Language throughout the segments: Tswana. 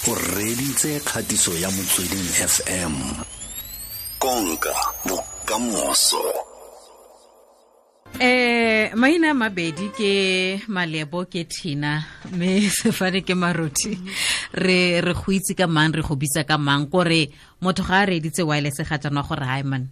O reditse kgatiso ya Motsweding FM. Konka bokamoso. Maina a mabedi ke Malebo, ke Thina, mme sefane ke Marothi. Re go itse ka mang, re go bitsa ka mang? Kore motho ga a reeditse wireless ga jaanwa gore hai man,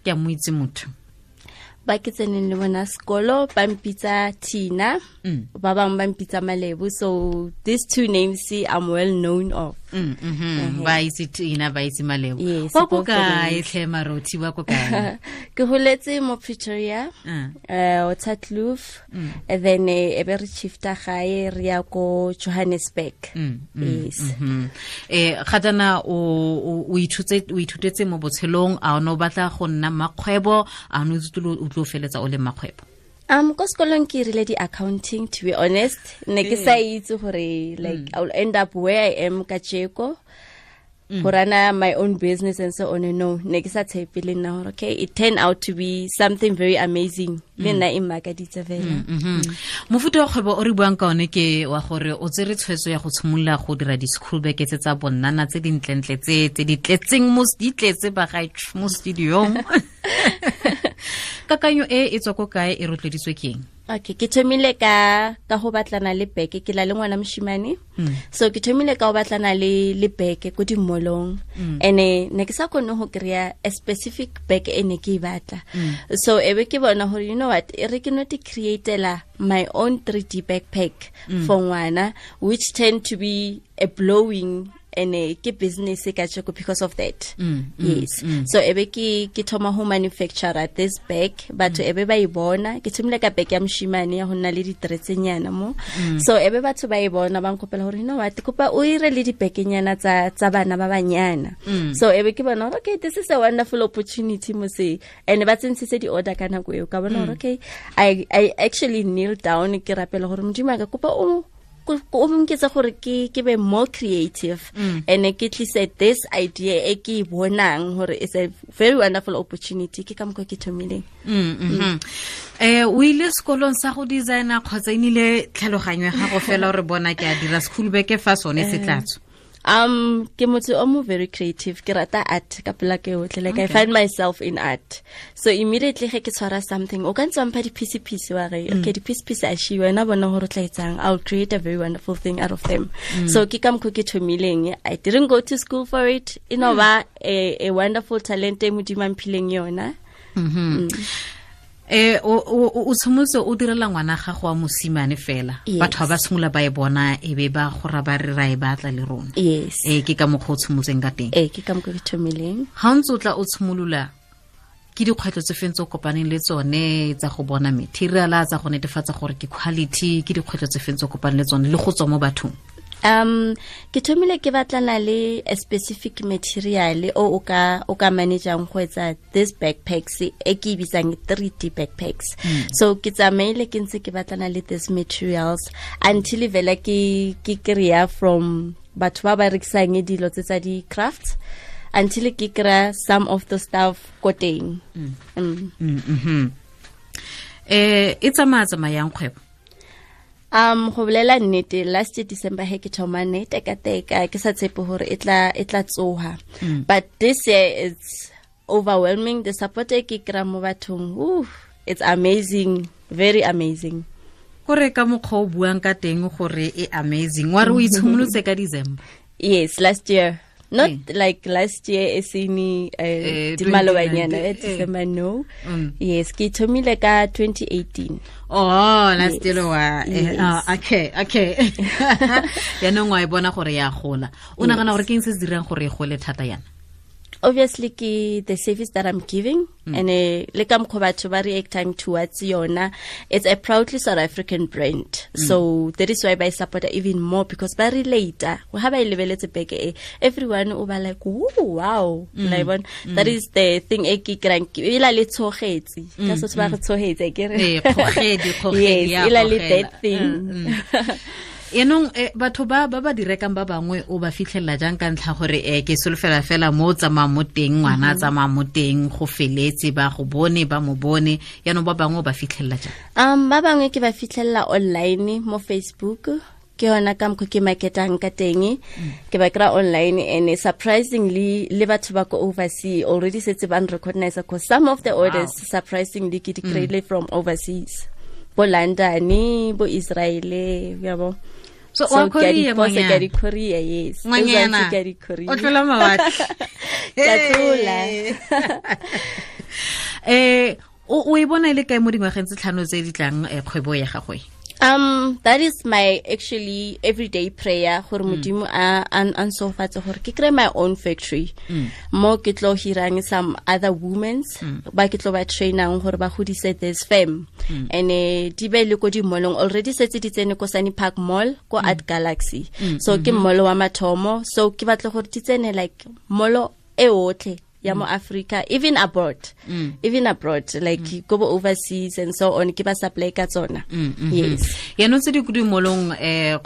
ke a mo itse motho. Ba ke tseneng le bona sekolo ba mpitsa Tina, ba bangwe ba mpitsa Malebo, so these two names I'm well known of. Ba itse Tina, ba itse Malebo. Yes, Wa ko both the kae names. tlhe Marothi, wa ko kae? Ke holetse mo Pretoria, Waterkloof, and then e be re shifta gae re ya ko Johannesburg. Yes. Ga jaana o ithutetse mo botshelong, a o ne o batla go nna makgwebo, a o ne o itse o tlo feletsa o le makgwebo? Ko sekolong ke rile di-accounting, to be honest. Ne ke sa itse gore like I will end up where I am kajeko. Go run-a my own business and so on. No, ne ke sa tshepe le nna gore okay, it turned out to be something very amazing. Le nna e mmakaditse fela. Mofuta wa kgwebo o re buang ka one ke wa gore o tsere tshwetso ya go tshimolola go dira di-school bag tse tsa bonnana tse dintlentle tse di tletseng mo, di tletse bagaetsho mo studiong. Kakanyo e e tswa ko kae, e rotloeditswe ke eng? Okay, ke thomile ka go batlana le beke, ke la le ngwana moshimane. So ke thomile ka go batlana le beke ko di-mall-ong. And ne ke sa kgone go kry-a a specific bag e ne ke e batla. So e be ke bona gore, you know what, e re ke no te createla my own 3D backpack for ngwana, which tend to be a blowing and ke business ka tjeko because of that. Yes. So ebe ke thoma ho manufacture this bag, batho ebe ba e bona, ke thomile ka bag ya moshimane ya ho nna le ditretsenyana mo. So ebe batho ba e bona ba nkopela hore, you know what, kopa o ire le dibekenyana tsa bana ba banyana. So ebe ke bona hore okay, this is a wonderful opportunity mose, and ba tsentshitse di order ka nako eo, ka bona hore okay, I actually kneel down ke rapela hore Modimo a ka kopa o nketse gore ke be more creative and ke tlise this idea e ke e bonang hore it's a very wonderful opportunity. Ke ka mokgwa ke thomileng. O ile sekolong sa go designer kgotsa e nnile tlhaloganyo ya gago fela gore bona ke a dira school bag fa sone se tla tswa? Ke motho o mo very creative, ke rata art ka pela ke yotlhe, like I find myself in art. So immediately ge ke tshwara something, o ka ntse wa mpha di-piece-piece wa re, okay, di-piece-piece a shiwe, wena bona gore o tla etsang, I'll create a very wonderful thing out of them. So ke ka mokgwa ke thomileng. I didn't go to school for it. E no ba a wonderful talent e Modimo a mphileng yona. O tshimolotse o direla ngwana gago wa mosimane fela. Yes. Batho ba simolola ba e bona e be ba gora ba re ra e batla le rona. Yes. Ke ka mokgwa o tshimolotseng ka teng. Ke ka mokgwa ke thomileng. Ha o ntse o tla o tshimolola, ke dikgwetlho tse feng tse o kopaneng le tsone tsa go bona material, tsa go netefatsa gore ke quality, ke dikgwetlho tse feng tse o kopaneng le tsone le go tswa mo bathong? Ke thomile ke batlana le a specific material o ka manageang go etsa this backpacks e ke e bitsang 3D backpacks. So ke tsamaile ke ntse ke batlana le these materials until vela ke kry-a from batho ba ba rekisang dilo tse tsa di-crafts, until ke kry-a some of the stuff ko teng. E tsamaya tsamayang kgwebo? Go bolela nnete, last year December he ke thoma ne teka-teka, ke sa tshepe hore e tla tsoha. But this year it's overwhelming. The support e ke kry-a mo bathong, ooh, it's amazing, very amazing. Kore ka mokgwa o buang ka teng gore e amazing, wa re o itshimolotse ka December? Yes, last year. Not like last year e sene, di malobanyana, 2019, December, no. Yes, ke thomile ka 2018. Oh, last Yes. year wa, Yes. okay. Yaanong wa e bona gore ya gola. O nagana gore ke eng se se dirang gore e gole thata yana? Obviously ke the service that I'm giving, and le ka mokgwa batho ba reactang towards yona. It's a proudly South African brand. So that is why ba support even more, because ba relate. Ha ba e lebeletse beke e, everyone o ba like, ooh, wow. La e bona? That is the thing e ke kry-ang, ke e la le tshogetsi. Ka se ba re tshogetse, ke re. Kgogedi, kgogedi, Yes, ya e la le gogela. that thing. Enong, batho ba ba di rekang ba bangwe o ba fitlhelela jang, ka ntlha gore ke solofela fela mo o tsamayang mo teng, ngwana a tsamaya mo teng, go feletse ba go bone, ba mo bone, yaanong ba bangwe o ba fitlhelela jang? Ba bangwe ke ba fitlhelela online mo Facebook. Ke yona ka mokgwa ke marketang ka teng. Ke ba kry online, and surprisingly le batho ba ko overseas already setse ba recognize, because some of the orders, surprisingly, ke di kry-ile from overseas, bo London, bo Israel, yabo. So wa courier, ke a di courier, yes. Ngwanyana ke a di courier. O tlola mawatle. Ke a tlola. O e bona ile kae mo dingwageng tse 5 tse di tlang, kgwebo ya gagwe? That is my actually everyday prayer, gore Modimo a nsofatse gore ke kry my own factory, mo ke tlo hirang some other womens, ba ke tlo ba trainang gore ba godise this firm, and di be le ko di-mallong. Already setse di tsene ko Sunny Park Mall, ko Art Galaxy, so ke mall wa mathomo. So ke batla gore di tsene like mall e otlhe ya mo Africa, even abroad, like go overseas and so on, ke ba supply ka tsona. Yes. Yaanong tse di ko dimolong,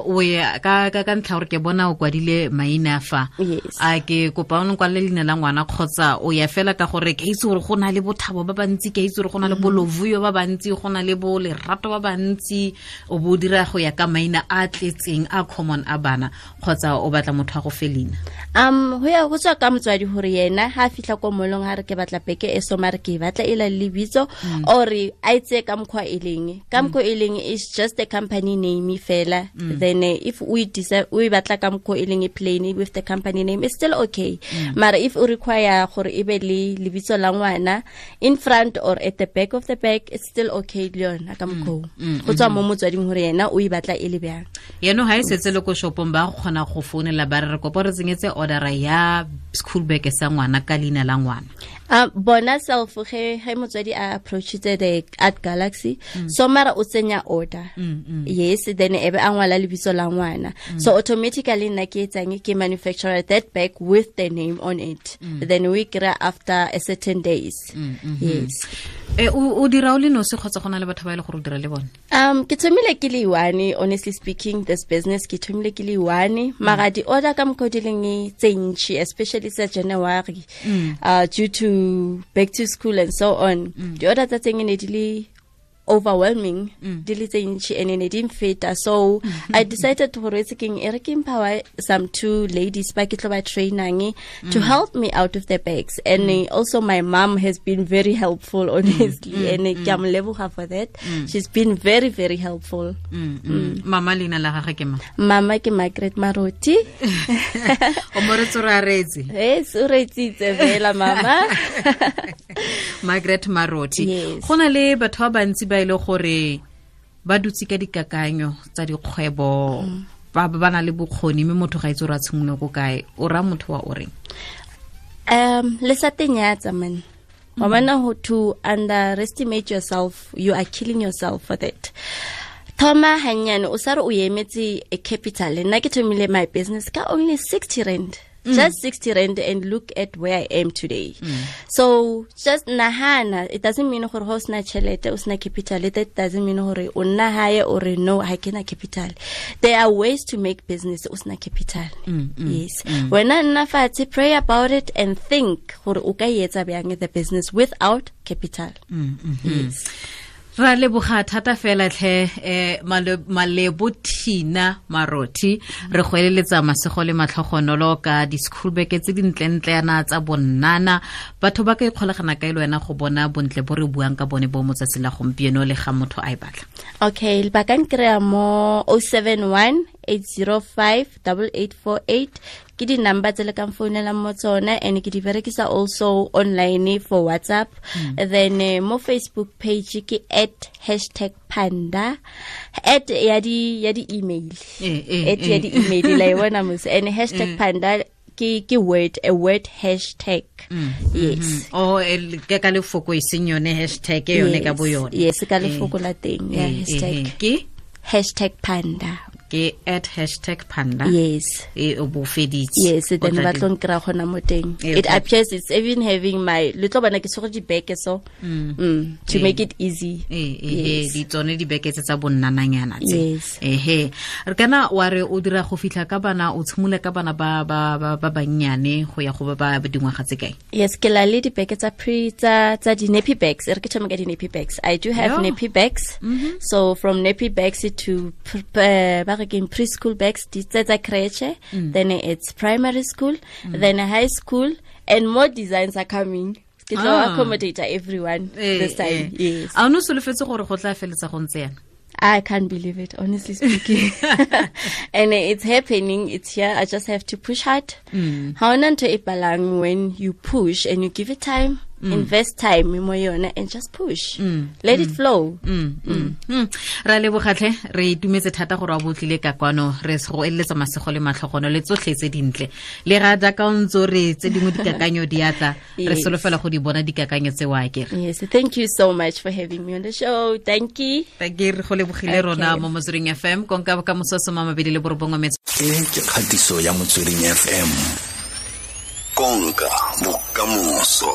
o ya ka ntlha gore ke bona o kwadile maina fa. A ke kopa o nkwalele leina la ngwana, kgotsa o ya fela ka gore ke itse gore go na le Bothabo ba bantsi, ke itse gore go na le Bolovuyo ba bantsi, go na le bo Lerato ba bantsi, o bo dira go ya ka maina a tletseng a common a bana, kgotsa o batla motho a go fe leina? Go ya go tswa ka motswadi gore yena ha fitlha ko molong ha re ke batla beke e so, mare ke batla e la lebitso, or a itse ka mokgwa e leng, ka mokgwa e leng is just a company name fela. Then if we decide we batla ka mokgwa e leng e plain with the company name, it's still okay. Mara if o require gore e be le lebitso la ngwana in front or at the back of the bag, it's still okay le yona ka mokgwa. Go tswa mo motswading gore yena o e batla e le bjang. Yeno ha e setse le ko shopong, ba go kgona go founela ba re kopa re tsenyetse order ya school bag sa ngwana ka leina la ngwana? Bona self ge motswadi a approachitse the Art Galaxy, so mara o tsenya order, yes, then ebe a ngwala lebitso la ngwana, so automatically nna ke etsang, ke manufacturer that bag with the name on it, then we kry after a certain days. Yes. O dira o le nosi kgotsa go na le batho ba e le gore o dira le bone? Ke thomile ke le one, honestly speaking, this business ke thomile ke le one, mara di order ka mokgwa di leng tse ntši, especially sa January, due to back to school and so on, di order tsa teng ne di le overwhelming, di le tse ntši, and ne di mfeta. So I decided to gore keng, e re ke empower some two ladies ba ke tlo ba trainang to help me out of the bags, and also my mom has been very helpful, honestly, and ke a mo leboga for that. She's been very, very helpful. Mama leina la gagwe ke mang? Mama ke Margaret Maroti. O mo re tsore a reetse? Yes, o reetsitse fela mama. Margaret Maroti. Yes. Go na le batho ba bantsi ba ile gore ba dutse ka dikakanyo tsa dikgwebo, ba na le bokgoni, mme motho ga itse gore a tshimolole ko kae. O raya motho wa o reng? Le sa tenyatsa man. Wa bona, to underestimate yourself, you are killing yourself for that. Thoma hanyane, o sa re o emetse a capital. Nna ke thomile my business ka only 60 rand. Just 60 rand, and look at where I am today. So just nahana, it doesn't mean gore ho sna chelete, o sna capital. That doesn't mean gore o nna hae or no, ha ke na capital. There are ways to make business o sna capital. Yes. Wena nna fatshe, pray about it and think gore o ka etsa bjang the business without capital. Yes. Ra leboga thata fela tlhe, Malebo Thina Marothi. Re go eleletsa masego le matlhogonolo ka di-school bag tse dintlentle yana tsa bonnana. Batho ba ka ikgolagana kae le wena go bona bontle bo re buang ka bone bo motsatsi la gompieno le ga motho a e batla? Okay, ba ka nkry-a mo 071 805 8848. Ke di-number tse le kang founelang mo tsona, and ke di berekisa also online for WhatsApp. Then mo Facebook page ke at hashtag panda, at ya di email, at ya di-email la e bona mos, and hashtag panda ke word, a word hashtag. Yes. Oh, ke ka lefoko e seng yone hashtag e yone ka bo yone. Yes, ka lefoko la teng ya hashtag. Ke hashtag panda. Ke at hashtag panda. Yes. E o bo feditse. Yes, then ba tlo nkry-a gona mo teng. It appears it's even having my le tlo bona ke tshwere dibeke, so to make it easy. Yes. Di tsone dibeke tse tsa bonnananyana tse. Yes. Ehe, re kana wa re o dira go fitlha ka bana, o tshimole ka bana ba bannyane go ya go ba ba dingwaga tse kae? Yes, ke la le dibeke tsa pre tsa di nappy bags. E re ke thome ka di nappy bags. I do have nappy bags. So from nappy bags to ba ba re keng preschool bags di tse tsa creche. Then it's primary school, then high school, and more designs are coming. Ke tlo accommodate everyone this time. Yes. A o ne o solofetse gore go tla feletsa go ntse yana? I can't believe it, honestly speaking. And it's happening. It's here. I just have to push hard. Ha hona ntho e palang when you push and you give it time, invest time mo yona and just push. Let it flow. Ra lebogatlhe, re itumetse thata gore wa botlile ka kwano. Re go eletsa masego le matlhogono le tsotlhe tse dintle, le ga jaaka o ntse o re tse dingwe dikakanyo di atla, re solofela go di bona dikakanyo tse wa kere. Yes, thank you so much for having me on the show. Thank you. Ke re go lebogile rona mo Motsweding FM, konka bokamoso 29. E ke kgatiso ya Motsweding FM, konka bokamoso.